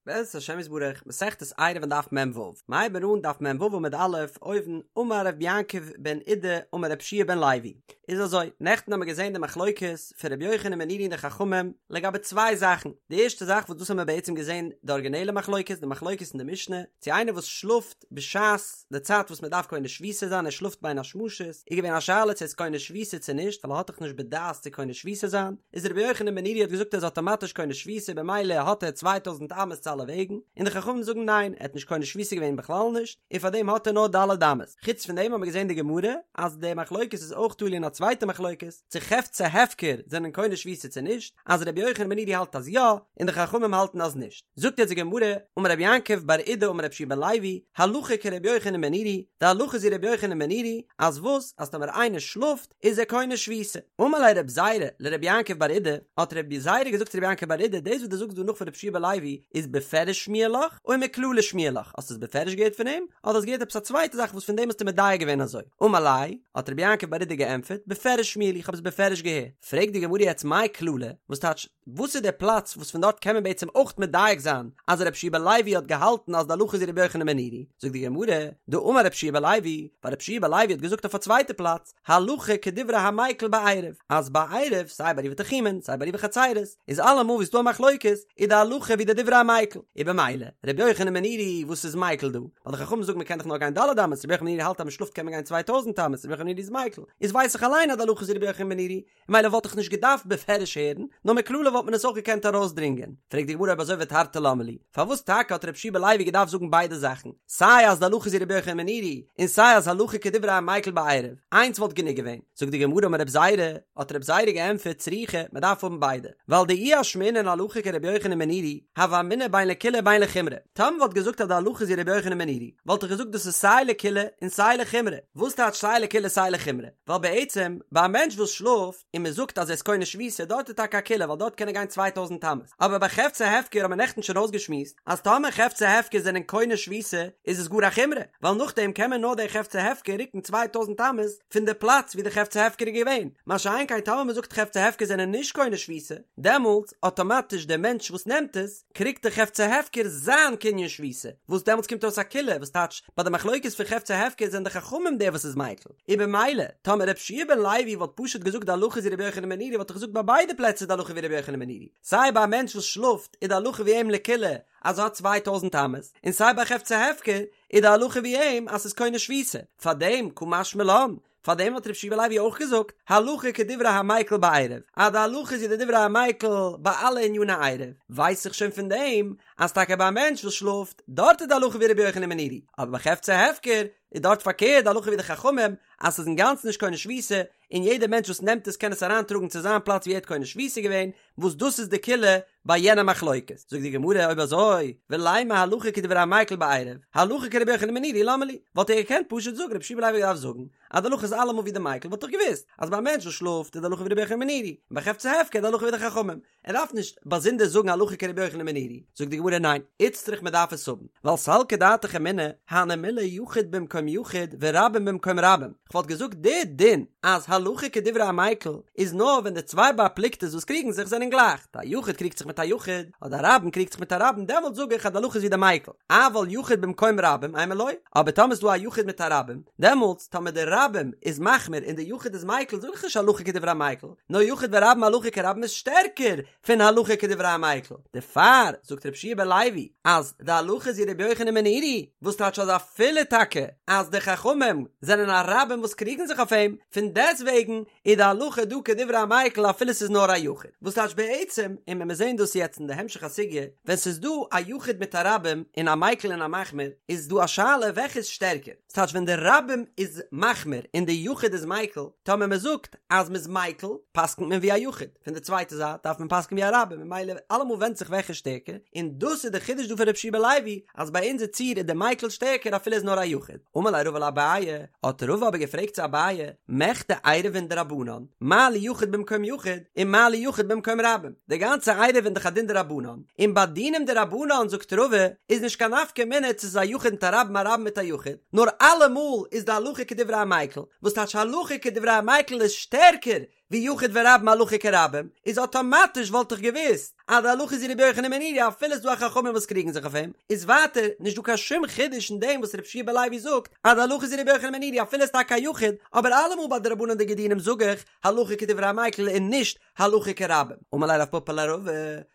בעזרת השם יתברך, מסכת עירובין דף מ"ו, מ'הייבן אן דף מ"ו עמוד א', אויבן, אמר רבי יעקב בן אידי אמר רבי יהושע בן לוי. איז אזוי, נעכטן האמיר געזען די מחלוקת פון רבי יוחנן בן נורי און די חכמים לגבי צוויי זאכן, די ערשטע זאך וואס דאס האמיר בעצם געזען די ארגינעלע מחלוקת, די מחלוקת אין די משנה, צו איינער וואס שלאפט בשעת די צייט וואס מען דארף קונה שביתה זיין, ער שלאפט בין השמשות, איז געווען א שאלה צו ער איז קונה שביתה צו נישט, ווייל ער האט דאך נישט בדעת צו קונה שביתה זיין, איז רבי יוחנן בן נורי האט געזאגט ער איז אטאמאטיש קונה שביתה במילא האט ער צוויי טויזנט אמות צו אלע וועגן, און די חכמים זאגן ניין ער האט נישט קונה שביתה געווען בכלל נישט, און פארדעם האט ער נאר ד' אמות. חוץ פון דעם האט מען געזען די גמרא אז די מחלוקת איז אויך תלוי אין א צווייטע מחלוקת, צו חפצי הפקר זענען קונה שביתה צו נישט, אז רבי יוחנן בן נורי האלט אז יא, און די חכמים האלטן אז נישט. זאגט יעצט די גמרא, אמר רבי יעקב בר אידי אמר רבי יהושע בן לוי, הלכה כרבי יוחנן בן נורי, די הלכה איז ווי רבי יוחנן בן נורי, אז וואס, אז טאמער איינער שלאפט, איז ער קונה שביתה. אמר ליה רב זירא לרבי יעקב בר אידי, האט רב זירא געזאגט צו רבי יעקב בר אידי, דאס וואס דו זאגסט דא נאך פון רבי יהושע בן לוי, איז בפירוש שמיע לך, או מכללא שמיע לך, האסט עס בפירוש געהערט פון אים, אדער האסט געהערט עפעס א צווייטע זאך וואס פון דעם האסטו מדייק געווען אזוי? אמר ליה, האט רבי יעקב בר אידי געענטפערט, בפירוש שמיע לי, איך האב עס בפירוש געהערט. פרעגט די גמרא יעצט מאי כללא, וואס טייטש, וואס איז דער פלאץ וואס פון דארט קען מען בעצם אויך מדייק זיין אז רבי יהושע בן לוי האט געהאלטן אז די הלכה איז ווי רבי יוחנן בן נורי? זאגט די גמרא, דאמר רבי יהושע בן לוי, ווייל רבי יהושע בן לוי האט געזאגט אויף א צווייטע פלאץ, הלכה כדברי המיקל בעירוב, אז ביי עירוב, סיי ביי עירובי תחומין, סיי ביי עירובי חצירות, איז אלעמאל ווי ס'איז דא א מחלוקת, איז די הלכה ווי די דברי המיקל, און במילא, רבי יוחנן בן נורי וואס איז מיקל דא? ווייל די חכמים זאגן מ'קען דאך נאר גיין ד' אמות, רבי יוחנן בן נורי האלט אז מ'שלאפט קען מען גיין 2000 אמות, רבי יוחנן בן נורי איז מיקל, איז ווייס איך אליין אז די הלכה איז ווי רבי יוחנן בן נורי, מילא וואלט איך נישט געדארפט בפירוש הערן, נאר מכללא וואלט מען עס אויך געקענט ארויסדרינגען. פרעגט די גמרא אויב אזוי ותרתי למה לי, פארוואס טאקע האט רבי יהושע בן לוי געדארפט זאגן ביידע זאכן, סיי אז די הלכה איז ווי רבי יוחנן בן נורי, און סיי אז הלכה כדברי המיקל בעירוב, איינס וואלט גענוג געווען. זאגט די גמרא אמר רב זירא, האט רב זירא געענטפערט צריכא, מען דארף האבן ביידע, ווייל דאי אשמעינן הלכה כרבי יוחנן בן נורי, הוה אמינא בין לקולא בין לחומרא. טאמער מ'וואלט געזאגט אז די הלכה איז ווי רבי יוחנן בן נורי, וואלט איך געזאגט דאס איז סיי לקולא און סיי לחומרא. וואס טייטש סיי לקולא סיי לחומרא? ווייל בעצם ביי א מענטש וואס שלאפט און מען זאגט אז ער איז קונה שביתה דארט איז טאקע א קולא ווייל דארט קען ער גיין צוויי טויזנט אמות, אבער ביי חפצי הפקר האט מען נעכטן שוין אויסגעשמועסט אז טאמער חפצי הפקר זענען קונה שביתה איז עס גאר א חומרא ווייל נאכדעם קען מען נאר די חפצי הפקר רוקן צוויי טויזנט אמות פון די פלאץ ווי די חפצי הפקר איז געווען, מה שאין כן טאמער מען זאגט חפצי הפקר זענען נישט קונה שביתה דעמאלטס אטאמאטיש דער מענטש וואס נעמט עס קריגט די חפצי הפקר זיין קנין שביתה, וואס דעמאלטס קומט אויס א קולא וואס טייטש ביי די מחלוקת פון חפצי הפקר זענען די חכמים דער וואס איז מיקל. און במילא, טאמער רבי יהושע בן לוי וואלט פשוט געזאגט די הלכה איז ווי רבי יוחנן בן נורי וואלט איך געזאגט ביי ביידע פלעצער איז די הלכה ווי רבי יוחנן בן נורי, סיי ביי א מענטש וואס שלאפט איז די הלכה ווי אים לקולא אז ער האט צוויי טויזנט אמות, און סיי ביי חפצי הפקר איז די הלכה ווי אים אז ס'איז קונה שביתה, פארדעם קא משמע לן, פארדעם האט רבי יהושע בן לוי אויך געזאגט הלכה כדברי המיקל בעירוב, אז די הלכה איז ווי די דברי המיקל ביי אלע עניני עירוב, ווייס איך שוין פון דעם אז טאקע ביי א מענטש וואס שלאפט, דארט איז די הלכה ווי רבי יוחנן בן נורי, אבער ביי חפצי הפקר איז דארט פארקערט די הלכה ווי די חכמים אז ס'איז אינגאנצן נישט קונה שביתה און יעדער מענטש וואס נעמט עס קען עס אריינטראגן צו זיין פלאץ ווי ער האט קונה שביתה געווען, וואס דאס איז די קולא ביי יענע מחלוקת. זאגט די גמרא אויב אזוי ולימא הלכה כדברי המיקל בעירוב, הלכה כרבי יוחנן בן נורי למה לי, וואלט ער געקענט פשוט זאגן רבי יהושע בן לוי האט געדארפט זאגן אז די הלכה איז אלעמאל ווי די מיקל וואלט איך געוואוסט אז ביי א מענטש וואס שלאפט איז די הלכה ווי רבי יוחנן בן נורי און ביי חפצי הפקר איז די הלכה ווי די חכמים, ער דארף נישט באזונדער זאגן הלכה כרבי יוחנן בן נורי, זאגט די גמרא ניין, איצטריך מען דארף עס האבן, ווייל סלקא דעתך אמינא, הני מילי יחיד במקום יחיד ורבים במקום רבים, כ'וואלט געזאגט די דין אז הלכה כדברי המיקל איז נאר ווען די צוויי בר פלוגתא'ס וואס קריגן זיך זענען גלייך, א יחיד קריגט זיך מיט א יחיד, אדער א רבים קריגט זיך מיט א רבים דעמאלט זאג איך אז די הלכה איז ווי די מיקל, אבל יחיד במקום רבים אימא לא, אבער טאמער איז דא א יחיד מיט א רבים, דעמאלטס טאמער די רבים איז מחמיר און די יחיד איז מיקל זאג איך נישט הלכה כדברי המיקל, נאר יחיד ורבים הלכה כרבים איז שטערקער פון הלכה כדברי המיקל, דערפאר זאגט רבי יהושע בן לוי אז די הלכה איז ווי רבי יוחנן בן נורי, וואס טייטש אז אפילו טאקע אז די חכמים זענען א רבים וואס קריגן זיך אויף אים, פון דעסטוועגן איז די הלכה דא כדברי המיקל אפילו ס'איז נאר א יחיד, וואס טייטש בעצם, און ווען מיר זעהן דאס יעצט אין די המשך הסוגיא, ווען ס'איז דא א יחיד מיט א רבים און א מיקל און א מחמיר, איז דא א שאלה וועלכע איז שטערקער, ס'טייטש ווען די רבים איז מחמיר און די יחיד איז מיקל, טאמער מ'זאגט אז מ'איז מיקל, פסק'נט מען ווי א יחיד, פון די צווייטע זייט דארף מען פסק'ן ווי א רבים, ממילא אלעמאל ווענדט זיך וועלכע איז שטערקער, און דאס איז די חידוש דא פון רבי יהושע בן לוי, אז ביי אונזער ציור איז די מיקל שטערקער אפילו איז נאר א יחיד. אמר ליה רבא לאביי, האט רבא אבער געפרעגט צו אביי, מכדי עירובין דרבנן, מה לי יחיד במקום יחיד, און מה לי יחיד במקום רבים, די גאנצע עירובין איז דאך א דין דרבנן, און ביי דינים דרבנן זאגט רבא, איז נישט קיין נפקא מינה צו ס'איז א יחיד מיט א רבים א רבים מיט א יחיד, נאר אלעמאל איז די הלכה כדברי המיקל, וואס טייטש הלכה כדברי המיקל איז שטערקער? ווי יחיד ורבים הלכה כרבים, איז אטאמאטיש וואלט איך געוואוסט אז די הלכה איז ווי רבי יוחנן בן נורי אפילו ס'איז דא א חכמים וואס קריגן זיך אויף אים, איז ווייטער נישט דא קיין שום חידוש אין דעם וואס רבי יהושע בן לוי זאגט אז די הלכה איז ווי רבי יוחנן בן נורי אפילו איז טאקע א יחיד, אבער אלעמאל ביי דרבנן'דיגע דינים זאג איך הלכה כדברי המיקל און נישט הלכה כרבים. אמר ליה רב פפא לרבא,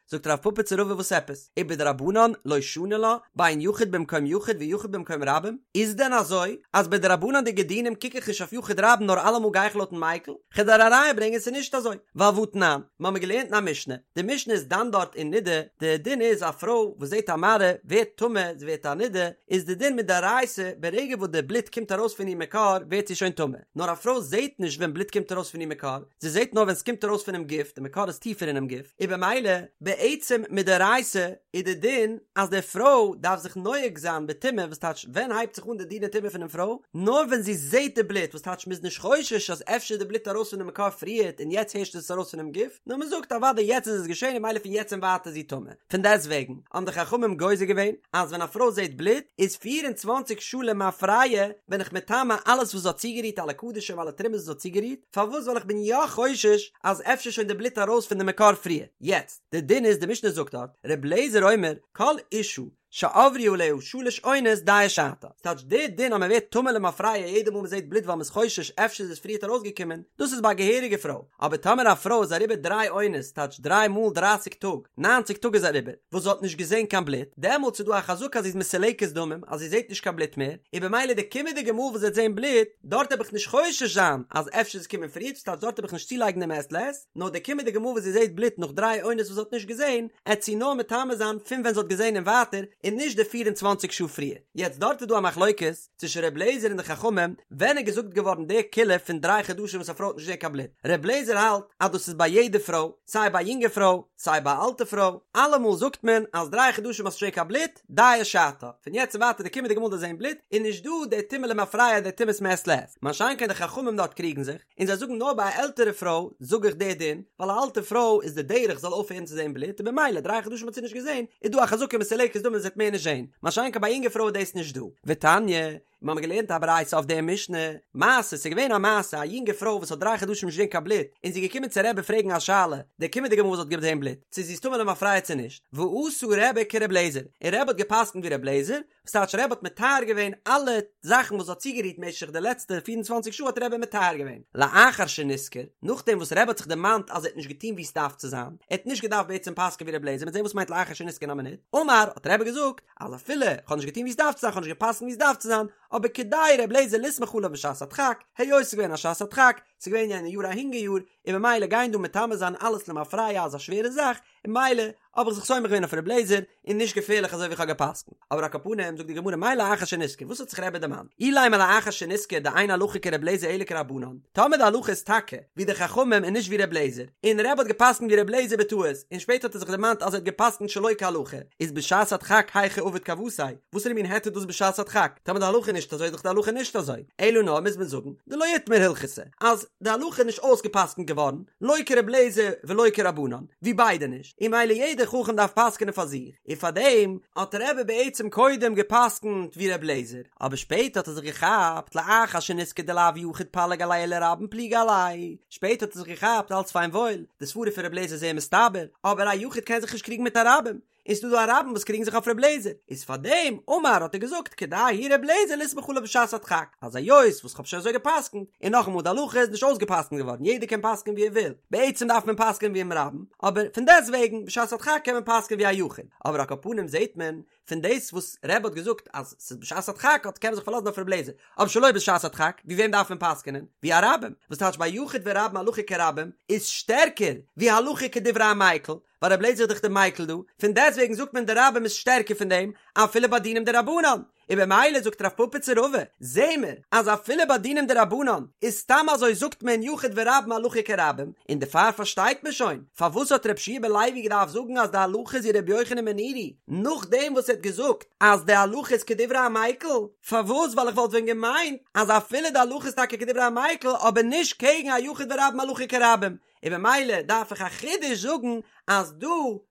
זאגט רב פפא צו רבא וואס עפעס? ובדרבנן לא שני לה, בין יחיד במקום יחיד ויחיד במקום רבים? איז דען אזוי אז ביי דרבנן'דיגע דינים קוק איך נישט אויף יחיד רבים נאר אלעמאל גיי איך לויטן מיקל? כ'וועל דיר א ראיה ברענגען ס'איז נישט אזוי, ווייל והתנן, מ'האמיר געלערנט אין א משנה, די משנה איז דן דארט אין נידה, די דין איז א פרוי וואס זעט א מראה ווערט טמא, זי ווערט א נידה, איז די דין מדאורייתא ברגע וואס די בלוט קומט ארויס פון איר מקור ווערט זי שוין טמא, נאר א פרוי זעט נישט ווען בלוט קומט ארויס פון איר מקור, זי זעט נאר ווען ס'קומט ארויס פונעם גוף, די מקור איז טיפער אינעם גוף, און במילא, בעצם מדאורייתא איז די דין אז די פרוי דארף זיך נוהג זיין בטומאה, וואס טייטש ווען הייבט זיך אן די דיני טומאה פונעם פרוי? נאר ווען זי זעט די בלוט, וואס טייטש מ'איז נישט חושש אז אפשר איז די בלוט ארויס פונעם מקור פריערט און יעצט הערשט איז עס ארויס פונעם גוף, נאר מ'זאגט אוודאי יעצט איז עס געשען און במילא פון יעצט און ווייטער איז זי טמא. פון דעסטוועגן האבן די חכמים גוזר געווען אז ווען א פרוי זעט בלוט איז 24 שעה למפרע בין איך מטמא אלעס וואס זי האט צוגערירט אלע קדשים אלע תרומות וואס זי האט צוגערירט, פארוואס ווייל איך בין יא חושש אז אפשר שוין די בלוט ארויס פון די מקור פריער. יעצט, די דין איז די משנה זאגט דארט, ר' אליעזר אומר כל אשה שעברו עליה שלש עונות דיה שעתה, ס'טייטש די דין אז מ'ווערט טמא למפרע יעדע מאל מ'זעט בלוט ווייל מ'איז חושש אפשר איז עס פריערט ארויסגעקומען, דאס איז ביי א געהעריגע פרוי, אבער טאמער א פרוי איז אריבער דריי עונות, ס'טייטש דריי מאל דרייסיג טאג, ניינציג טאג איז אריבער, וואס זי האט נישט געזען קיין בלוט, דעמאלטס איז דא א חזקה אז זי איז מסולקת דמים, אז זי זעט נישט קיין בלוט מער, און במילא די קומענדיגע מאל וואס זי וועט זען בלוט, דארט העב איך נישט חושש זיין אז אפשר איז עס קומען פריערט, ס'טייטש דארט העב איך נישט צולייגן דעם מעת לעת, נאר די קומענדיגע מאל וואס זי זעט בלוט נאך דריי עונות וואס זי האט נישט געזען, עט זי נאר מטמא זיין פון ווען זי האט געזען און ווייטער, און נישט די 24 שעה פריער. יעצט דארט איז דא א מחלוקת צווישן ר' לעזער און די חכמים, ווען איז געזאגט געווארן די קולא פון דריי חדשים וואס א פרוי האט נישט געזען קיין בלוט? ר' לעזער האלט אז דאס איז ביי יעדע פרוי, סיי ביי א יונגע פרוי, סיי ביי א אלטע פרוי, אלעמאל זאגט מען אז דריי חדשים האסט נישט געזען קיין בלוט, דיה שעתה, פון יעצט און ווייטער די קומענדיגע מאל דו זען בלוט, איז נישט דא די טומאה למפרע די טומאת מעת לעת. מה שאין כן די חכמים דארט קריגן זיך, און זיי זאגן נאר ביי א עלטערע פרוי זאג איך די דין, ווייל א אלטע פרוי איז די דרך זאל אויפהערן צו זען בלוט און במילא דריי חדשים האט זי נישט געזען, איז דא א חזקה מסולקת דמים זי וועט מער נישט זען, מה שאין כן ביי א יונגע פרוי איז דאס נישט דא. ותניא, און מיר האבן געלערנט א ברייתא אויף די משנה, מעשה, ס'איז געווען א מעשה, א יונגע פרוי וואס האט דריי חדשים נישט געזען קיין בלוט, און זי איז געקומען צו רבי פרעגן א שאלה, די קומענדיגע מאל וואס זי האט געזען בלוט, צו זי איז טמא למפרע צו נישט, ועשה רבי כר' לעזער, און רבי האט גע'פסק'נט ווי ר' לעזער, וואס טייטש רבי האט מטהר געווען אלע זאכן וואס זי האט צוגערירט משך די לעצטע 24 שעה האט רבי מטהר געווען, לאחר שנזכר, נאכדעם וואס רבי האט זיך דערמאנט אז ער האט נישט געטון ווי עס דארף צו זיין, ער האט נישט געדארפט בעצם פסק'ען ווי ר' לעזער, מ'וועט זען וואס מיינט לאחר שנזכר אין א מינוט, אמר, האט רבי געזאגט, אז אפילו איך האב נישט געטון ווי עס דארף צו זיין, איך האב נישט גע'פסק'נט ווי עס דארף צו זיין, אבער כדאי ר' לעזער לסמוך עליו בשעת הדחק, היות ס'איז געווען א שעת הדחק, ס'איז געווען יענע יאר א הונגער יאר, און ממילא גיין דא מטמא זיין אלעס למפרע איז א שווערע זאך, און ממילא האב איך זיך סומך געווען אויף ר' לעזער, און נישט געפערליך אזוי ווי איך האב גע'פסק'נט. אבער על כל פנים, זאגט די גמרא מאי לאחר שנזכר, וואס האט זיך רבי דערמאנט? אילימא לאחר שנזכר דאין הלכה כר' לעזער אלא כרבנן, טאמער די הלכה איז טאקע ווי די חכמים און נישט ווי ר' לעזער, און רבי האט גע'פסק'נט ווי ר' לעזער בטעות, און שפעטער האט ער זיך דערמאנט אז ער האט גע'פסק'נט שלא כהלכה, איז בשעת הדחק היכי עביד כוותיה, וואסערע מין היתר איז דאס בשעת הדחק? טאמער די הלכה איז נישט אזוי איז דאך די הלכה נישט אזוי, אלא נאר מוז מען זאגן דלא איתמר הלכתא, אז די הלכה איז נישט אויסגע'פסק'נט געווארן, לא כר' לעזער ולא כרבנן, ווי ביידע נישט, און ממילא יעדער חכם דארף פסק'נען פאר זיך, און פארדעם האט רבי בעצם קודם גע'פסק'נט ווי ר' לעזער, אבער שפעטער האט ער זיך געכאפט לאחר שנזכר דלאו יחיד פליג עליה אלא רבים פליגי עליה, שפעטער האט ער זיך געכאפט אלץ פיין וואויל, די סברה פון ר' לעזער איז זייער מסתבר, אבער א יחיד קען זיך נישט קריגן מיט א רבים, און ס'דא דא א רבים וואס קריגן זיך אויף ר' לעזער, איז פאר דעם אמר האט ער געזאגט כדאי הוא ר' לעזער לסמוך עליו בשעת הדחק, אז היות וואס כ'האב שוין אזוי גע'פסק'נט, און נאכאמאל די הלכה איז נישט אויסגע'פסק'נט געווארן יעדער קען פסק'נען ווי ער וויל, בעצם דארף מען פסק'נען ווי דעם רבים, אבער פון דעסט וועגן בשעת הדחק קען מען פסק'נען ווי א יחיד, אבער על כל פנים זעהט מען פון דאס וואס רבי האט געזאגט אז ס'איז בשעת הדחק האט קען מען זיך פארלאזן אויף ר' לעזער, אבער שלא בשעת הדחק, ווי וועם דארף מען פסק'נען? ווי א רבים, וואס טייטש ביי יחיד ורבים הלכה כרבים איז שטערקער ווי הלכה כדברי המיקל, ווייל רבי לעזער איז דאך די מיקל דא, פון דעסטוועגן זאגט מען די רבים איז שטערקער פון דעם, אפילו ביי דינים דרבנן, און במילא זאגט רב פפא צו רבא, זעה מיר אז אפילו ביי דינים דרבנן איז סתם אזוי זאגט מען יחיד ורבים הלכה כרבים, און דערפאר פארשטייט מען שוין פארוואס האט רבי יהושע בן לוי געדארפט זאגן אז די הלכה איז ווי רבי יוחנן בן נורי, נאכדעם וואס ער האט געזאגט אז די הלכה איז כדברי המיקל, פארוואס ווייל איך וואלט ווען געמיינט אז אפילו די הלכה איז טאקע כדברי המיקל אבער נישט קעגן א יחיד ורבים הלכה כרבים, און במילא דארף איך א חידוש זאגן אז דא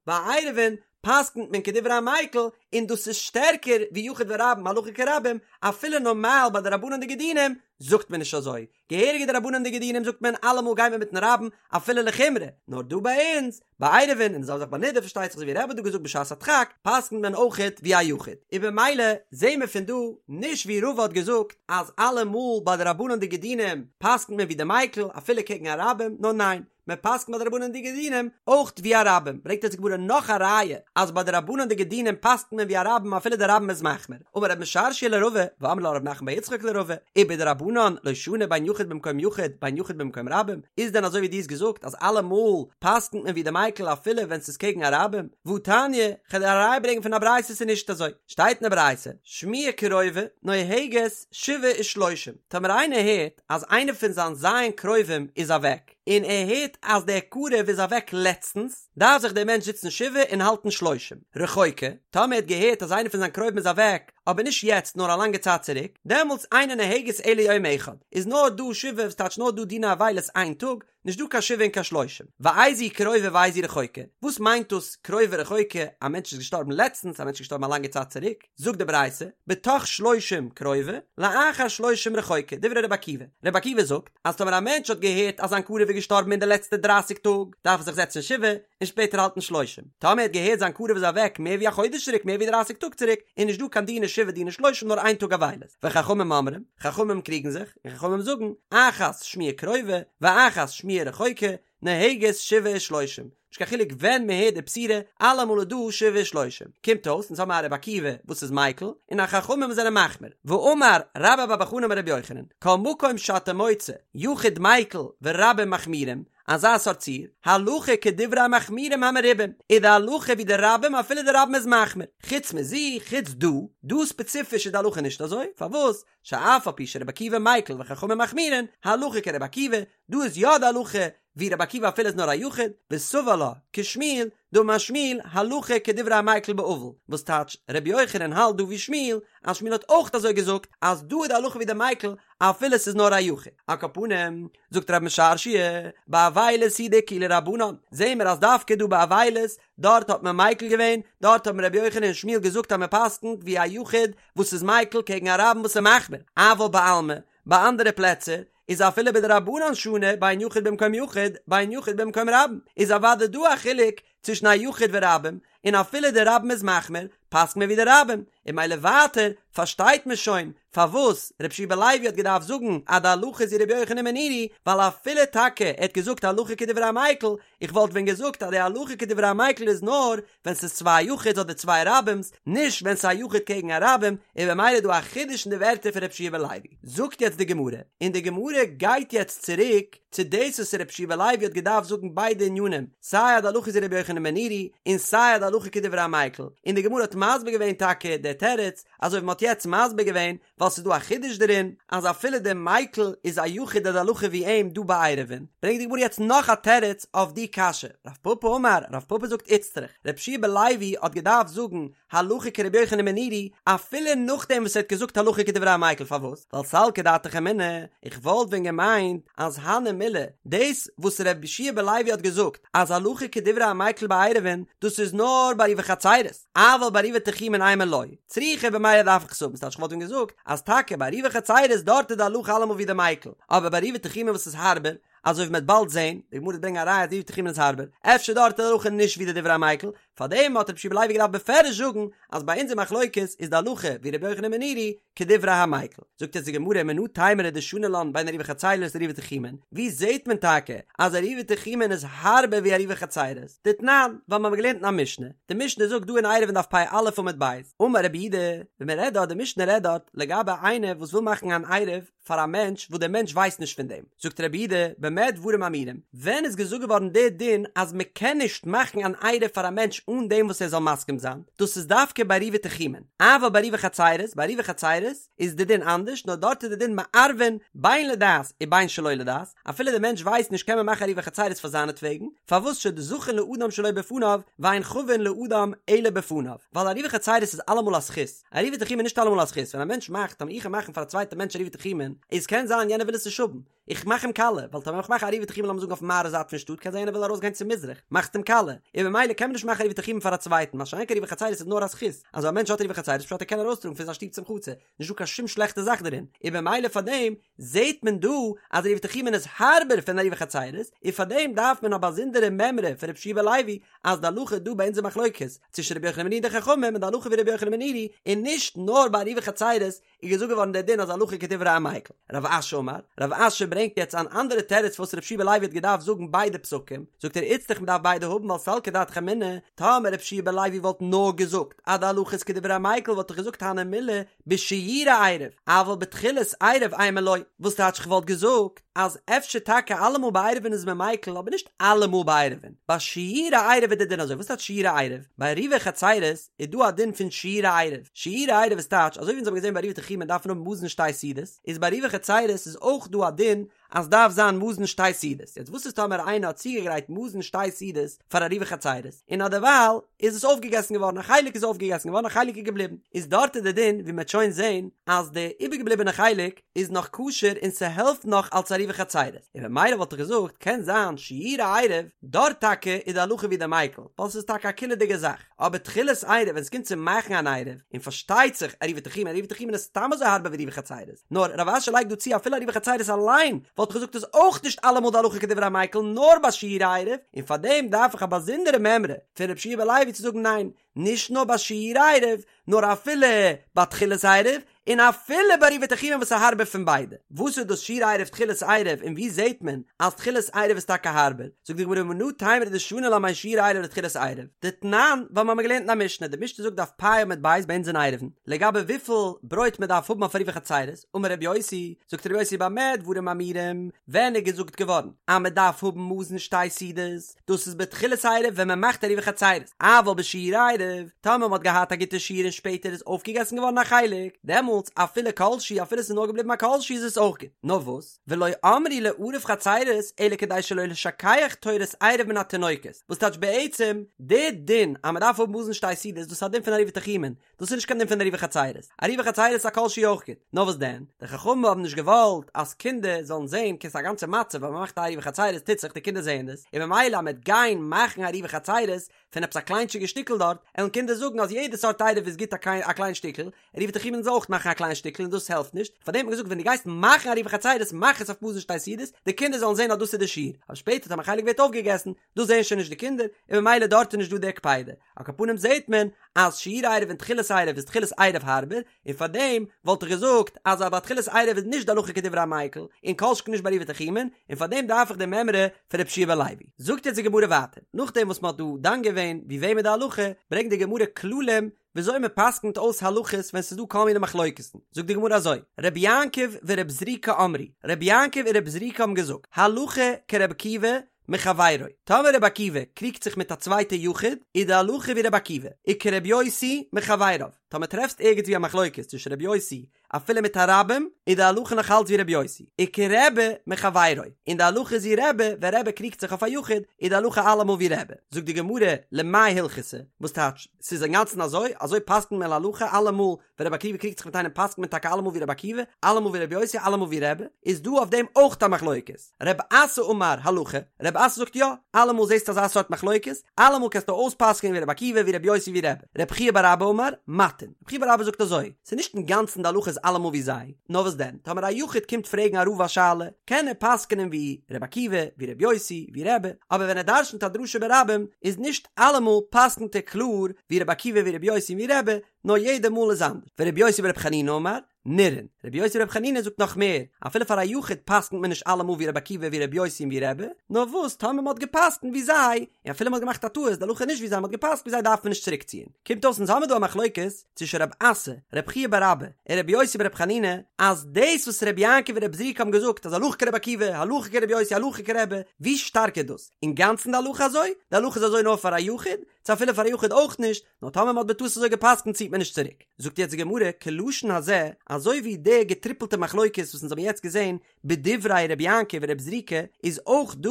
ביי עירובין. פסק'נט מען כדברי המיקל, און דאס איז שטערקער ווי יחיד ורבים הלכה כרבים, אפילו נארמאל ביי דרבנן'דיגע דינים זאגט מען נישט אזוי, געהעריגע דרבנן'דיגע דינים זאגט מען אלעמאל גייט מען מיטן רבים אפילו לחומרא, נאר דא ביי אונז, ביי עירובין און די זעלבע זאך ביי נדה פארשטייט זיך אזוי ווי רבי האט דא געזאגט בשעת הדחק, פסק'נט מען אויכעט ווי א יחיד. און במילא זעהן מיר פון דא נישט ווי רבא האט געזאגט אז אלעמאל ביי דרבנן'דיגע דינים פסק'נט מען ווי די מיקל אפילו קעגן א רבים, נאר ניין, מען פסק'נט ביי דרבנן'דיגע דינים אויך ווי א רבים, ברענגט אונז די גמרא נאך א ראיה אז ביי דרבנן'דיגע דינים פסק'נט מען ווי א רבים אפילו די רבים איז מחמיר, אמר רב משרשיא לרבא, ואמרי לה רב נחמן בר יצחק לרבא, ובדרבנן לא שנו בין יחיד במקום יחיד בין יחיד במקום רבים, איז דען אזוי ווי דו האסט געזאגט אז אלעמאל פסק'נט מען ווי די מיקל אפילו ווען ס'איז קעגן א רבים? והתניא, כ'וועל דיר א ראיה ברענגען פון א ברייתא ס'איז נישט אזוי, שטייט אין די ברייתא, שמועה קרובה נוהגת שבעה ושלושים, טאמער איינער הערט אז איינער פון זיין ז' קרובים איז אוועק, און ער הערט אז דער קרוב איז אוועק לעצטנס, דארף זיך דער מענטש זיצן שבעה און האלטן שלושים. רחוקה, טאמער ער האט געהערט אז איינער פון זיין קרובים איז אוועק, אבער נישט יעצט נאר א לאנגע צייט צוריק, דעמאלטס אינה נוהגת אלא יום אחד, איז נאר דא שבעה וואס טייטש נאר דא דיני אבילות איין טאג, נישט דא קיין שבעה און קיין שלושים. ואיזו היא קרובה ואיזו היא רחוקה, וואס מיינט דאס קרובה רחוקה, א מענטש איז געשטארבן לעצטנס, א מענטש איז געשטארבן א לאנגע צייט צוריק, זאגט די ברייתא, בתוך שלושים קרובה, לאחר שלושים רחוקה, דברי רבי עקיבא. רבי עקיבא זאגט, אז טאמער א מענטש האט געהערט אז זיין קרוב איז געשטארבן אין די לעצטע דרייסיג טאג, דארף ער זיך זעצן שבעה, און שפעטער האלטן שלושים. טאמער ער האט געהערט זיין קרוב איז אוועק מער ווי א חודש צוריק, מער ווי דרייסיג טאג צוריק, איז נישט דא קיין דיני שבעה דיני שלושים נאר איין טאג אבילות. וחכמים אומרים, חכמים קריגן זיך, און חכמים זאגן, אחת שמועה קרובה, ואחת שמועה רחוקה, נוהגת שבעה ושלושים, נישט קיין חילוק ווען מען הערט די בשורה, אלעמאל איז דא שבעה ושלושים. קומט אויס, אונז האבן א רבי עקיבא וואס איז מיקל, און א חכמים וואס זענען מחמיר. ואמר רבה בר בר חנה אמר רבי יוחנן, כל מקום שאתה מוצא, יחיד מיקל ורבים מחמירים, אזא סארט ציור, הלכה כדברי המחמירים המרובים, איז די הלכה ווי די רבים אפילו די רבים איז מחמיר. חוץ מזו, חוץ דא, דא ספעציפיש איז די הלכה נישט אזוי, פארוואס? שאף על פי שרבי עקיבא מיקל וחכמים מחמירין, הלכה כרבי עקיבא, דא איז יא די הלכה ווי רבי עקיבא אפילו איז נאר א יחיד, וסבר לה כשמואל, דאמר שמואל, הלכה כדברי המיקל באבל, וואס טייטש רבי יוחנן האלט דא ווי שמואל, אז שמואל האט אויך אזוי געזאגט אז דא איז די הלכה ווי די מיקל אפילו ס'איז נאר א יחיד. על כל פנים, זאגט רב משרשיא, באבילות הוא דאקילו רבנן, זעהן מיר אז דווקא דא ביי אבילות, דארט האט מען מיקל געווען, דארט האבן רבי יוחנן און שמואל געזאגט אז מען פסק'נט ווי א יחיד וואס איז מיקל קעגן א רבים וואס איז מחמיר, אבל בעלמא, ביי אנדערע פלעצער, איז אפילו בדרבנן שנו בין יחיד במקום יחיד, בין יחיד במקום רבים, איז אוודאי דא א חילוק צווישן א יחיד ורבים, און אפילו די רבים איז מחמיר, פסק'נט מען ווי די רבים, און ממילא ווייטער פארשטייט מען שוין פארוואס רבי יהושע בן לוי האט געדארפט זאגן אז די הלכה איז ווי רבי יוחנן בן נורי, ווייל אפילו טאקע ער האט געזאגט הלכה כדברי המיקל, איך וואלט ווען געזאגט אז די הלכה כדברי המיקל איז נאר ווען ס'איז צוויי יחיד'ס אדער צוויי רבים'ס, נישט ווען ס'איז א יחיד קעגן א רבים, און במילא איז דא א חידוש אין די ווערטער פון רבי יהושע בן לוי. זאגט יעצט די גמרא, און די גמרא גייט יעצט צוריק צו דאס וואס רבי יהושע בן לוי האט געדארפט זאגן ביידע ענינים, סיי אז די הלכה איז ווי רבי יוחנן בן נורי, און סיי אז די הלכה כדברי המיקל, און די גמרא האט מסביר געווען טאקע די תירוץ, אזוי ווי מ'האט יעצט מסביר געווען, ווייל ס'איז דא א חידוש דערין, אז אפילו דער מיקל איז א יחיד איז די הלכה ווי אים דא ביי עירובין, ברענגט די גמרא יעצט נאך א תירוץ אויף די קשיא, רב פפא אמר, רב פפא זאגט איצטריך, רבי יהושע בן לוי האט געדארפט זאגן הלכה כרבי יוחנן בן נורי, אפילו נאכדעם וואס ער האט געזאגט הלכה כדברי המיקל, פארוואס? ווייל סלקא דעתך אמינא, איך וואלט ווען געמיינט אז הני מילי, דאס וואס רבי יהושע בן לוי האט געזאגט אז הלכה כדברי המיקל בעירובין, דאס איז נאר ביי עירובי חצירות, אבל בעירובי תחומין אימא לא, צריכא במילא דארף איך עס האבן, ס'טייטש כ'וואלט ווען געזאגט אז טאקע ביי עירובי חצירות דארט איז די הלכה אלעמאל ווי די מיקל, אבער ביי עירובי תחומין וואס איז הארבער, אזוי ווי מ'וועט באלד זען, די גמרא וועט ברענגען א ראיה אז עירובי תחומין איז הארבער, אפשר דארט איז די הלכה נישט ווי די דברי המיקל, פארדעם האט רבי יהושע בן לוי געדארפט בפירוש זאגן אז ביי אונזער מחלוקת איז די הלכה ווי רבי יוחנן בן נורי כדברי המיקל. זאגט יעצט די גמרא מנא תימרא דשני לן בין עירובי חצירות לעירובי תחומין, ווי זעט מען טאקע אז עירובי תחומין איז הארבער ווי עירובי חצירות? דתנן, ווייל מיר האבן געלערנט אין א משנה, די משנה זאגט דא אין עירובין דף פ"א עמוד ב', אמר רבי יהודה, ווען מען רעדט דארט, די משנה רעדט דארט לגבי איינער וואס וויל מאכן אן עירוב פאר א מענטש וואס דער מענטש ווייסט נישט פון דעם, זאגט רבי יהודה, במה דברים אמורים, ווען איז געזאגט געווארן דער דין אז מען קען נישט מאכן אן עירוב פאר א מענטש אן דעם וואס ער זאל מסכים זיין, דאס איז דווקא ביי עירובי תחומין, אבל בעירובי חצירות, ביי עירובי חצירות איז די דין אנדערש, נאר דארט איז די דין מערבין בין לדעת ובין שלא לדעת, אפילו דער מענטש ווייסט נישט קען מען מאכן עירובי חצירות פאר זיינעטוועגן, פארוואס שזכין לאדם שלא בפניו ואין חבין לאדם אלא בפניו, ווייל עירובי חצירות איז אלעמאל א זכות, עירובי תחומין איז נישט אלעמאל א זכות, ווען א מענטש מאכט, טאמער איך גיי מאכן פאר א צווייטע מענטש עירובי תחומין, איז קען זיין יענער וויל עס נישט האבן. איך מאך אים קאליע, ווייל טאמער איך מאך עירובי תחומין לאמיר זאגן אויפן מערב זייט פון שטאט קען זיין יענער וויל ארויסגיין צו מזרח, מאכסט אים קאליע, און במילא קען מען נישט מאכן עירובי תחומין פאר א צווייטן, מה שאין כן עירובי חצירות איז נאר א זכות, אז א מענטש האט עירובי חצירות פשט ער קען ארויסטראגן פון זיין שטוב צום חצר, נישט דא קיין שום שלעכטע זאך דערין, און במילא פאר דעם זעהט מען דא אז עירובי תחומין איז הארבער פון עירובי חצירות, און פאר דעם דארף מען א באזונדערע מימרא פון רבי יהושע בן לוי אז די הלכה דא ביי אונזער מחלוקת צווישן רבי יוחנן בן נורי און די חכמים איז די הלכה ווי רבי יוחנן בן נורי, און נישט נאר ביי עירובי חצירות איז געזאגט געווארן דער דין אז הלכה כדברי המיקל. רב אשי אמר, רב אשי ברענגט יעצט אן אנדערע תירוץ פארוואס רבי יהושע בן לוי האט געדארפט זאגן ביידע פסוקים, זאגט ער איצטריך מען דארף ביידע האבן ווייל סלקא דעתך אמינא, טאמער רבי יהושע בן לוי וואלט נאר געזאגט אז די הלכה איז כדברי המיקל וואלט איך געזאגט הני מילי בשיורי עירוב, אבל בתחילת עירוב אימא לא, וואס טייטש כ'וואלט געזאגט אז אפשר טאקע אלעמאל ביי עירובין איז מען מיקל אבער נישט אלעמאל ביי עירובין, ביי שיורי עירוב איז די דין אזוי, וואס טייטש שיורי עירוב? ביי עירובי חצירות איז דא א דין פון שיורי עירוב, שיורי עירוב איז טייטש אזוי ווי אונז האבן געזען ביי עירובי תחומין דארף מען האבן מזון שתי סעודות, איז ביי עירובי חצירות איז אויך דא א דין אז דארף זיין מזון שתי סעודות, יעצט וואס איז טאמער איינער האט צוגעגרייט מזון שתי סעודות פאר עירובי חצירות, און אדערווייל איז עס אויפגעגעסן געווארן, א חלק איז אויפגעגעסן געווארן א חלק איז געבליבן, איז דארט איז די דין ווי מ'עט שוין זען אז די איבערגעבליבענע חלק איז נאך כשר און ס'העלפט נאך אלס עירובי חצירות, און במילא וואלט איך געזאגט קען זיין שיורי עירוב, דארט טאקע איז די הלכה ווי די מיקל, ווייל ס'איז טאקע א קולא'דיגע זאך. אבער תחילת עירוב ווען ס'קומט צו מאכן אן עירוב, און פארשטייט זיך עירובי תחומין, עירובי תחומין איז סתם אזוי הארבער ווי עירובי חצירות, נאר רב אשי לייגט דא צו אפילו עירובי חצירות אליין וואלט איך געזאגט איז אויך נישט אלעמאל די הלכה כדברי המיקל נאר ביי שיורי עירוב, און פארדעם דארף איך א באזונדערע מימרא פון רבי יהושע בן לוי צו זאגן ניין, נישט נאר ביי שיורי עירוב, נאר אפילו ביי תחילת עירוב, און אפילו ביי עירובי תחומין וואס איז הארבער פון ביידע. וואס איז דאס שיורי עירוב תחילת עירוב און ווי זעהט מען אז תחילת עירוב איז טאקע הארבער? זאגט די גמרא מנא תימרא דשני לה בין שיורי עירוב לתחילת עירוב? דתנן, ווייל מ'האמיר געלערנט אין א משנה, די משנה זאגט דף פ' עמוד ב' ביי אונז אין עירובין, לגבי וויפיל ברויט מען דארף האבן אויף עירובי חצירות, אמר רבי יוסי, זאגט רבי יוסי במה דברים אמורים, ווען איז געזאגט געווארן אז מען דארף האבן מזון שתי סעודות? דאס איז בתחילת עירוב ווען מען מאכט עירובי חצירות, אבל בשיורי עירוב, טאמער מען האט געהאט א גוטע שיעור און שפעטער איז אויפגעגעסן געווארן א חלק, דעמאלטס אפילו כל שהוא אפילו עס איז נאר געבליבן א כל שהוא איז עס אויך גוט, נאר וואס, ולא אמרו לערב חצירות אלא כדי שלא לשכח תורת עירוב מן התינוקות, וואס טייטש בעצם, די דין אז מען דארף האבן מזון שתי סעודות דאס איז א דין פון עירובי תחומין, דאס איז נישט קיין דין פון עירובי חצירות, עירובי חצירות איז א כל שהוא אויך גוט, נאר וואס דען, די חכמים האבן נישט געוואלט אז קינדער זאלן זען ס'איז א גאנצע מצב ווען מען מאכט א עירובי חצירות טוט זיך די קינדער זעען דאס, און ממילא אז מען וועט גיין מאכן עירובי חצירות פון עפעס א קליינטשיגע שטיקל דארט, עלן קינדער זאגן אז יעדע סארט עירוב איז גוט א קליין שטיקל, עירובי תחומין זאל אויך מאכן א קליין שטיקל און דאס העלפט נישט, פארדעם האט מען געזאגט ווען דו גייסט מאכן עירובי חצירות מאך עס אויף מזון שתי סעודות, די קינדער זאלן זען אז דאס איז די שיעור, אבער שפעטער טאמער א חלק ווערט אויפגעגעסן, דאס זעען שוין נישט די קינדער, און ממילא דארט איז נישט דא די קפידה. על כל פנים זעהט מען אז שיורי עירוב און תחילת עירוב איז תחילת עירוב הארבער, און פאר דעם וואלט איך געזאגט אז ביי תחילת עירוב איז נישט די הלכה כדברי המיקל, און כל שכן נישט ביי עירובי תחומין, און פאר דעם דארף איך די מימרא פון רבי יהושע בן לוי. זאגט יעצט די גמרא ווייטער, נאכדעם וואס מען האט דא דן געווען ווי וועם איז די הלכה, ברענגט די גמרא כללים וויאזוי מען פסק'נט אויס הלכות ווען ס'איז דא כל מיני מחלוקת'ן, זאגט די גמרא אזוי, רבי יעקב ורבי זריקא אמרו, רבי יעקב און רבי זריקא האבן געזאגט, הלכה כרבי עקיבא מחבירו, טאמער רבי עקיבא קריגט זיך מיט א צווייטע יחיד, איז די הלכה ווי רבי עקיבא, וכרבי יוסי מחבריו, טאמער טרעפסט ערגעץ ווי א מחלוקת צווישן רבי יוסי אפילו מיט א רבים, איז די הלכה נאך אלץ ווי רבי יוסי, וכרבי מחבירו, און די הלכה איז ווי רבי, ווען רבי קריגט זיך אויף א יחיד, איז די הלכה אלעמאל ווי רבי. זאגט די גמרא, למאי הלכתא, וואס טייטש, ס'איז אינגאנצן אזוי? אזוי פסק'נט מען להלכה אלעמאל ווען רבי עקיבא קריגט זיך מיט איינעם פסק'נט מען טאקע אלעמאל ווי רבי עקיבא, אלעמאל ווי רבי יוסי, אלעמאל ווי רבי, איז דא אויף דעם אויך א מחלוקת. רב אסי אמר הלכה, רב אסי זאגט יא, אלעמאל זעסטו אזא סארט מחלוקת, אלעמאל קענסטו אויספסק'נען ווי רבי עקיבא, ווי רבי יוסי, ווי רבי. רב חייא בר אבא אמר, מטין. רב חייא בר אבא זאגט אזוי, ס'איז נישט אינגאנצן די הלכה איז אלעמאל ווי זיי, נאר וואס דען, טאמער א יחיד קומט פרעגן א רב א שאלה, קען ער פסק'נען ווי רבי עקיבא, ווי רבי יוסי, ווי רבי, אבער ווען ער דרש'נט א דרשה ברבים, איז נישט אלעמאל פסק'נט ער קלאר ווי רבי עקיבא ווי רבי יוסי און ווי רבי, נאר יעדע מאל איז אנדערש. ורבי יוסי ברבי חנינא אמר, נראין. רבי יוסי ברבי חנינא זאגט נאך מער, אפילו פאר א יחיד פסק'נט מען נישט אלעמאל ווי רבי עקיבא ווי רבי יוסי און ווי רבי, נאר וואס טאמער מ'האט געפסק'נט ווי זיי, און אפילו מ'האט געמאכט א טעות, די הלכה איז נישט ווי זיי, מ'האט געפסק'נט ווי זיי דארף מען נישט צוריקציען. קומט אויס אונז האמיר דא א מחלוקת צווישן רב אסי, רב חייא בר אבא, און רבי יוסי ברבי חנינא, אז דאס וואס רבי יעקב און רבי זריקא האבן געזאגט אז הלכה כרבי עקיבא, הלכה כרבי יוסי, הלכה כרבי, ווי שטארק איז דאס? אינגאנצן די הלכה אזוי? די הלכה איז אזוי נאר פאר א יחיד? צו אפילו פאר א יחיד אויך נישט? נאר טאמער מ'האט בטעות אזוי געפסקנט ציט מען נישט צוריק. זאגט יעצט די גמרא, כלשון הזה, אזוי ווי די געטריפלטע מחלוקת וואס אונז האבן יעצט געזען בדברי רבי יעקב ורבי זריקא, איז אויך דא,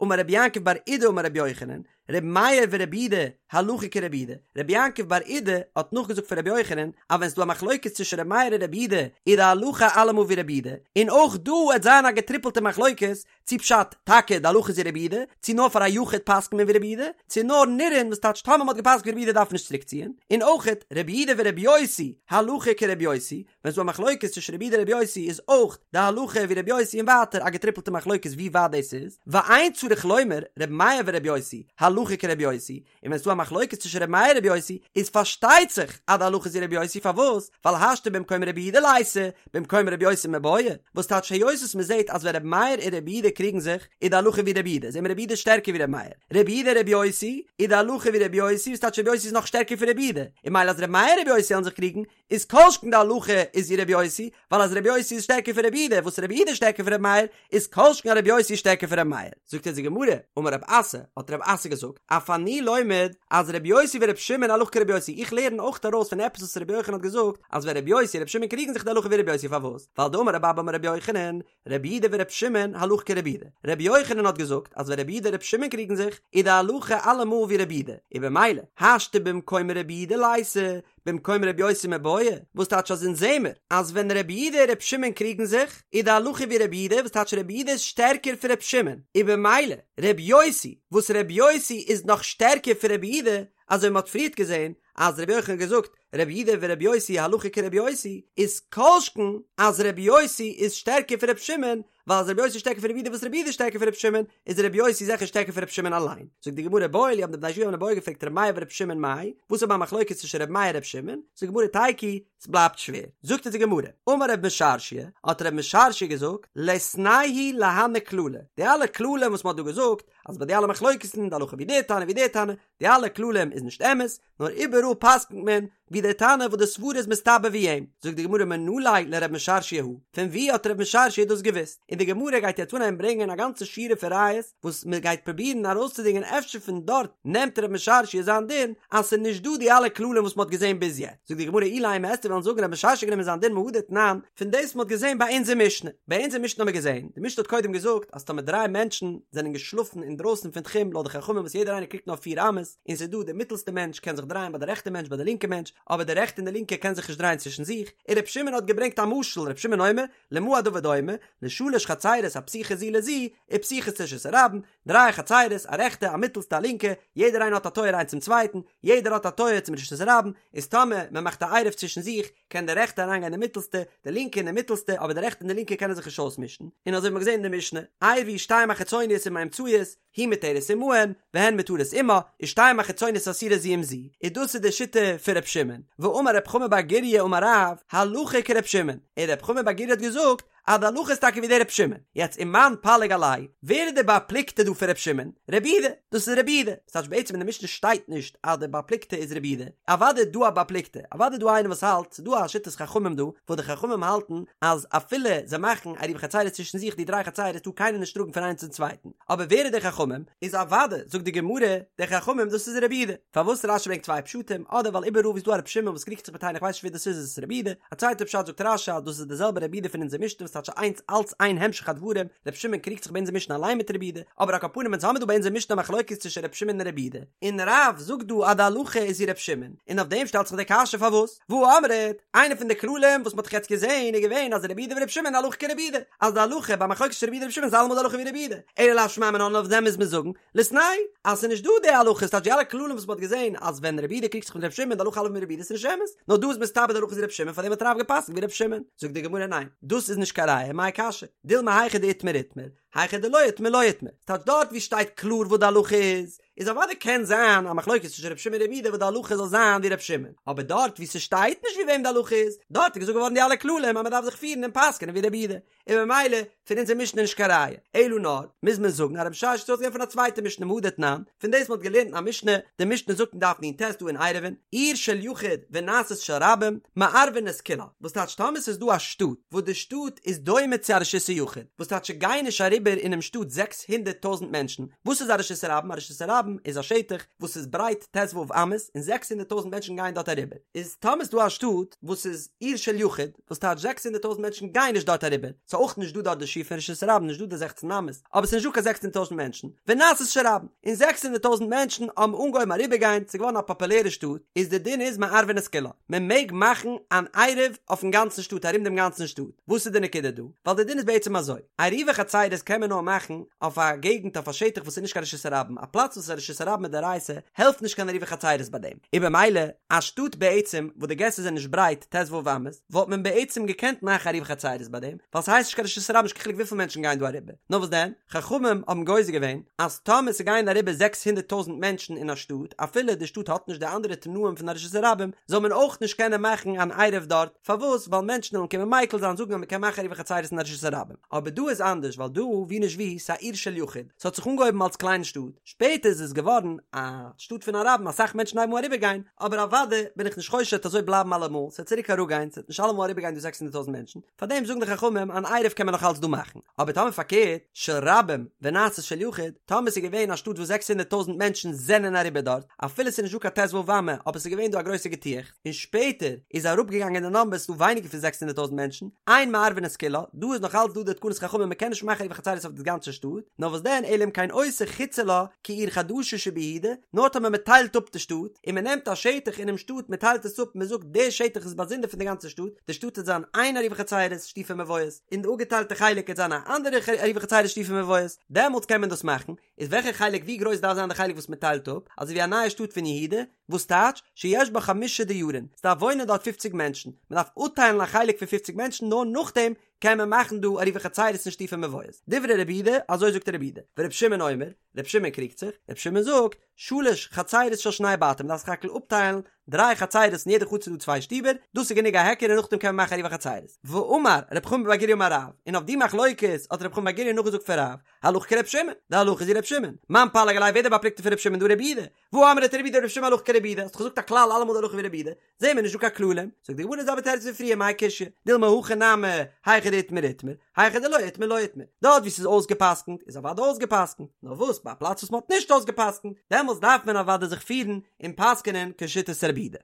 אמר רבי יעקב בר אידי אמר רבי יוחנן, ר' מאיר ור' יהודה הלכה כר' יהודה, ר' יעקב בר אידי האט נאכגעזאגט פון ר' יוחנן אז ווען ס'איז דא א מחלוקת צווישן ר' מאיר און ר' יהודה איז די הלכה אלעמאל ווי ר' יהודה, און אויך דא וועט זיין א געטריפלטע מחלוקת צו פשט טאקע די הלכה איז ווי ר' יהודה, צו נאר פאר א יחיד פסק'נט מען ווי ר' יהודה, צו נאר נראין וואס טייטש טאמער מ'האט געפסק'נט ווי ר' יהודה דארף מען נישט צוריק ציען, און אויכעט ר' יהודה ור' יוסי הלכה כר' יוסי, ווען ס'דא א מחלוקת צווישן רבי יהודה און רבי יוסי איז אויך די הלכה ווי רבי יוסי און ווייטער א געטריפלטע מחלוקת ווי ווייט דאס איז, ואין צריך לומר רבי מאיר ורבי יוסי הלכה כרבי יוסי, און ווען ס'דא א מחלוקת צווישן רבי מאיר און רבי יוסי איז פארשטייט זיך אז די הלכה איז ווי רבי יוסי פארוואס? ווייל השתא במקום רבי יהודה ליתא במקום רבי יוסי מיבעיא, וואס טייטש היות וואס מ'זעט אז ווען רבי מאיר און רבי יהודה קריגן זיך איז די הלכה ווי רבי יהודה זעט מען רבי יהודה איז שטערקער ווי רבי מאיר, רבי יהודה רבי יוסי איז די הלכה ווי רבי יוסי וואס טייטש רבי יוסי איז נאך שטערקער פון רבי יהודה, און ממילא אז רבי מאיר און רבי יוסי וועלן זיך קריגן איז כל שכן די הלכה איז ווי רבי יוסי, ווייל אז רבי יוסי איז שטערקער פון רבי יהודה, וואס רבי יהודה איז שטערקער פון רבי מאיר, איז כל שכן אז רבי יוסי איז שטערקער פון רבי מאיר. זאגט אונז די גמרא, אמר רב אסי, האט רב אסי געזאגט, אף אני לומד אז רבי יוסי ורבי שמעון הלכה כרבי יוסי, איך לערן אויך ארויס פון עפעס וואס רבי יוחנן האט געזאגט, אז ווען רבי יוסי און רבי שמעון קריגן זיך די הלכה ווי רבי יוסי פארוואס? ווייל דאמר רבי אבא אמר רבי יוחנן, רבי יהודה ורבי שמעון הלכה כרבי יהודה, רבי יוחנן האט געזאגט אז ווען רבי יהודה און רבי שמעון קריגן זיך, איז די הלכה אלעמאל ווי רבי יהודה, און במילא, השתא במקום רבי יהודה ליתא, במקום רבי יוסי מיבעיא, וואס טייטש אז אונז זעמער אז ווען רבי יהודה און רבי שמעון קריגן זיך, איז די הלכה ווי רבי יהודה, וואס טייטש רבי יהודה איז שטערקער פון רבי שמעון, און במילא, רבי יוסי, וואס רבי יוסי איז נאך שטערקער פון רבי יהודה, אזוי ווי מען האט פריערט געזען אז רבי יוחנן האט געזאגט רבי יהודה ורבי יוסי הלכה כרבי יוסי, איז כל שכן אז רבי יוסי איז שטערקער פון רבי שמעון, ווייל אז רבי יוסי איז שטערקער פון רבי יהודה וואס רבי יהודה איז שטערקער פון רבי שמעון, איז רבי יוסי זיכער שטערקער פון רבי שמעון אליין. זאגט די גמרא איבעיא להו האבן די בני ישיבה האבן אן איבעיא געפרעגט רבי מאיר ורבי שמעון מאי, וואס איז א מחלוקת צווישן רבי מאיר און רבי שמעון, זאגט די גמרא תיקו, ס'בלייבט שווער. זאגט אונז די גמרא, אמר רב משרשיא, האט רב משרשיא געזאגט, ליתנהו להני כללי, די אלע כללים וואס מ'האט דא געזאגט, אז ביי די אלע מחלוקת'ן, די הלכה ווי דער תנא ווי דער תנא, די אלע כללים איז נישט אמת, נאר איבעראל פסק'נט מען ווי דער תנא וואס די סברה איז מסתבר ווי אים. זאגט די גמרא מנא ליה לרב משרשיא הא, פון ווי האט רב משרשיא דאס געוואוסט? און די גמרא גייט יעצט אנהייבן ברענגען א גאנצע שורה פון ראיות וואס מען גייט פרובירן ארויסצודינגען אפשר פון דארט נעמט רב משרשיא זיין דין אז ס'איז נישט דא די אלע כללים וואס מ'האט געזען ביז יעצט. זאגט די גמרא אילימא וועסטו וועלן זאגן רב משרשיא גענומען זיין דין מהא דתנן פון דאס וואס מ'האט געזען ביי אונזער משנה. ביי אונזער משנה האט מען געזען, די משנה האט קודם געזאגט אז טאמער דריי מענטשן זענען געשלאפן אינדרויסן פון תחום לויט די חכמים וואס יעדער איינער קריגט נאר פיר אמות, און ס'איז דא די מיטלסטע מענטש קען זיך דרייען ביי די רעכטע מענטש ביי די לינקע מענטש, אבער די רעכטע און די לינקע קען זיך נישט דרייען צווישן זיך, און ר' שמעון האט געברענגט א משל, ר' שמעון אומר, למה הדבר דומה, לשלש חצירות הפתוחות זו לזו, ופתוחות לרשות הרבים, דריי חצירות, א רעכטע, א מיטלסטע, א לינקע, יעדער איינער האט א טויער איינס צום צווייטן, יעדער האט א טויער צום רשות הרבים, איז טאמער מען מאכט א עירוב צווישן זיך, קען די רעכטע אריינגיין אין די מיטלסטע, די לינקע אין די מיטלסטע, אבער די רעכטע און די לינקע קענען זיך נישט אויסמישן, און אזוי האט מען געזען אין די משנה, עירבו שתיים החיצוניות עם האמצעיות, היא מותרת עמהן, והן מותרות עמה, ושתיים החיצוניות אסורות זו עם זו, און דאס איז די שיטה פון ר' שמעון, ואמר רב חמא בר גוריא אמר רב, הלכה כר' שמעון, און רב חמא בר גוריא האט געזאגט אז די הלכה איז טאקע ווי דער ר' שמעון, יעצט ומאן פליג עליה, ווער איז דער בר פלוגתא דא פון ר' שמעון? רבי יהודה, דאס איז רבי יהודה, ס'טייטש בעצם אין די משנה שטייט נישט אז דער בר פלוגתא איז רבי יהודה, אוודאי איז דא א בר פלוגתא, אוודאי איז דא איינער וואס האלט, ס'איז דא א שיטת חכמים דא, וואס די חכמים האלטן אז אפילו זיי מאכן עירובי חצירות צווישן זיך די דריי חצירות טאר קיינער נישט טראגן פון איינס צום צווייטן, אבער ווער איז די חכמים? איז אוודאי, זאגט די גמרא, די חכמים דאס איז רבי יהודה. פארוואס רשי ברענגט צוויי פשטים, אדער ווייל איבעראל ווי ס'איז דא א רבי שמעון וואס קריגט זיך מיט איינער איך ווייס נישט ווער דאס איז איז עס רבי יהודה, א צווייטע פשט זאגט רשי אז דאס איז די זעלבע רבי יהודה פון אונזער משנה וואס טייטש איינס אלץ איין המשך הדברים, רבי שמעון קריגט זיך ביי אונזער משנה אליין מיט רבי יהודה, אבער על כל פנים אונז האמיר דא ביי אונזער משנה א מחלוקת צווישן רבי שמעון און רבי יהודה, און רב זאגט דא אז די הלכה איז ווי רבי שמעון, און אויף דעם שטעלט זיך די קשיא פארוואס? והא אמרת, איינע פון די כללים וואס מ'האט דאך יעצט געזען איז געווען אז רבי יהודה ורבי שמעון הלכה כרבי יהודה, אז די הלכה ביי מחלוקת צווישן רבי יהודה און רבי שמעון איז אלעמאל די הלכה ווי רבי יהודה, אלא לאו שמע מינה אויף דעם מוז מען זאגן, ליתנהו, אז ס'איז נישט דא די הלכה, ס'טייטש די אלע כללים וואס מ'האט געזען אז ווען רבי יהודה קריגט זיך מיט רבי שמעון די הלכה אלעמאל ווי רבי יהודה איז נישט אמת, נאר דא איז מסתבר די הלכה איז ווי רבי שמעון פארדעם האט רב גע'פסק'נט ווי רבי שמעון, זאגט די גמרא ניין, דאס איז נישט קיין ראיה, מאי קשיא, דילמא היכא דאיתמר איתמר, היכא דלא איתמר לא איתמר, ס'טייטש דארט ווי שטייט קלאר וואס די הלכה איז, איז אוודאי קען זיין א מחלוקת צווישן רבי שמעון און רבי יהודה וואס די הלכה זאל זיין ווי רבי שמעון, אבער דארט ווי ס'שטייט נישט ווי וועם די הלכה איז, דארט איז געזאגט געווארן די אלע כללים אז מ'דארף זיך פירן און פסק'נען ווי רבי יהודה, און ממילא פון אונזער משנה נישט קיין ראיה, אלא נאר מוז מען זאגן אז רב משרשיא האט געלערנט פון א צווייטע משנה מהא דתנן, פון דאס מ'האט געלערנט אין א משנה, די משנה זאגט אין דף נ"ט דא אין עירובין, עיר של יחיד ונעשית של רבים, מערבין את כולה, וואס טייטש טאמער ס'איז דא א שטאט וואס די שטאט איז דומה צו א רשות היחיד, וואס טייטש ס'גייען נישט אריבער. אריבער אינעם שטאט 600 טויזענט מענטשן, וואס איז א רשות הרבים? א רשות הרבים איז א שטח וואס איז ברייט ט"ו אמות און 600 טויזענט מענטשן גייען דארט אריבער, איז טאמער איז דא א שטאט וואס איז עיר של יחיד, וואס טייטש 600 טויזענט מענטשן גייען נישט דארט אריבער, ס'איז אויך נישט דא דארט די שיעור פון רשות הרבים, נישט דא די זעכצן אמות, אבער ס'איז נישט דא קיין 600 טויזענט מענטשן, ונעשית של רבים, און 600 טויזענט מענטשן האבן אנגעהויבן אריבערגיין, ס'איז געווארן א פאפולערע שטאט, איז די דין איז מערבין את כולה, מען מעג מאכן אן עירוב אויפן גאנצן שטאט ארום דעם גאנצן שטאט, וואס איז די נקודה דא? ווייל די דין איז בעצם אזוי, עירובי חצירות קען מען נאר מאכן אויף א געגנט אויף א שטח וואס איז נישט קיין רשות הרבים, א פלאץ וואס איז א רשות הרבים מדאורייתא העלפט נישט קיין עירובי חצירות ביי דעם, און במילא א שטאט בעצם וואס די געסער זענען נישט ברייט ט"ו אמות וואלט מען בעצם געקענט מאכן עירובי חצירות ביי דעם, ווייל ס'הייסט נישט קיין רשות הרבים נישט קיין חילוק וויפיל מענטשן גייען דא אריבער, נאר וואס דען? חכמים האבן גוזר געווען אז טאמער ס'גייען אריבער 600 טויזענט מענטשן אין א שטאט אפילו די שטאט האט נישט די אנדערע תנאים פון א רשות הרבים זאל מען אויך נישט קענען מאכן אן עירוב דארט, פארוואס? ווייל מענטשן וועלן קומען מיקל זיין זאגן אז מ'קען מאכן עירובי חצירות אין א רשות הרבים. אבער דא איז אנדערש ווייל דא ווי נישט ווי ס'איז א עיר של יחיד, ס'האט זיך אנגעהויבן אלס קליינע שטאט, שפעטער איז עס געווארן א שטאט פון א רבים אסאך מענטשן הייבן אן אריבערגיין, אבער אוודאי בין איך נישט חושש ס'וועט אזוי בלייבן אלעמאל, ס'וועט צוריק אראפגיין, ס'וועט נישט אלעמאל אריבערגיין דא 600 טויזענט מענטשן, פארדעם זאגן די חכמים אן עירוב קען מען נאך אלץ דא מאכן, אבער טאמער פארקערט, של רבים ונעשית של יחיד, טאמער ס'איז געווען א שטאט וואס 600 טויזענט מענטשן זענען אריבער דארט, אפילו ס'איז נישט דא קיין ט"ו אמה, אבער ס'איז געווען דא א גרויסע געטועכץ, און שפעטער איז אראפגעגאנגען די נאמבער ס'איז דא ווייניגער פון 600 טויזענט מענטשן, אין מערבין את כולה, דא איז נאך אלץ דא די תקנת חכמים מ'קען נישט מאכן עירובי חצירות אויף די גאנצע שטאט, נאר וואס דען אלא אם כן עושה חוצה לה כעיר חדשה שביהודה, נאר טאמער מ'טיילט אפ די שטאט, און מ'נעמט א שטח אינעם שטאט מ'טיילט עס אפ מ'זאגט די שטח איז באזונדער פון די גאנצע שטאט, די שטאט וועט זיין איין עירובי חצירות שיתופי מבואות, און די אפגעטיילטע חלק וועט זיין א אנדערע עירובי חצירות שיתופי מבואות, דעמאלטס קען מען דאס מאכן, איז וועלכע חלק ווי גרויס דארף זיין די חלק וואס מ'טיילט אפ, אזוי ווי א נייע שטאט פון יהודה, וואס טייטש, שיש בה חמשה דיורין, ס'דארף וואוינען דארט פופציג מענטשן, מ'דארף אפטיילן א חלק פון פופציג מענטשן נאר נאכדעם קען מען מאכן דא עירובי חצירות און שיתופי מבואות. דברי רבי יהודה, אזוי זאגט רבי יהודה. ורבי שמעון אומר, רבי שמעון קריגט זיך, רבי שמעון זאגט, שלש חצירות של שני בתים, מ'דארף סך הכל אפטיילן דריי חצירות אין יעדע חצר איז דא צוויי שטיבער, דאס איז גענוג א היכר און נאכדעם קען מען מאכן עירובי חצירות. ואמר רב חמא בר גוריא אמר רב, און אויף די מחלוקת האט רב חמא בר גוריא נאכגעזאגט פון רב, הלכה כרבי שמעון, די הלכה איז ווי רבי שמעון, מאן פליג עליה ווער דער בר פלוגתא פון רבי שמעון דא רבי יהודה, והא אמרת רבי יהודה רבי שמעון הלכה כרבי יהודה, האסט דאך געזאגט א כלל אלעמאל די הלכה ווי רבי יהודה, זעהן מיר נישט דא קיין כללים, זאגט די גמרא די זעלבע תירוץ ווי פריער מאי קשיא, דילמא הכא נמי, היכא דאיתמר איתמר, היכא דלא איתמר לא איתמר, דארט ווי ס'איז אויסגעפסקנט איז אוודאי אויסגעפסקנט, נאר וואס ביי א פלאץ וואס מ'האט נישט אויסגעפסקנט, דעמאלטס דארף מען אוודאי זיך פירן און פסק'נען כשיטת רבי יהודה.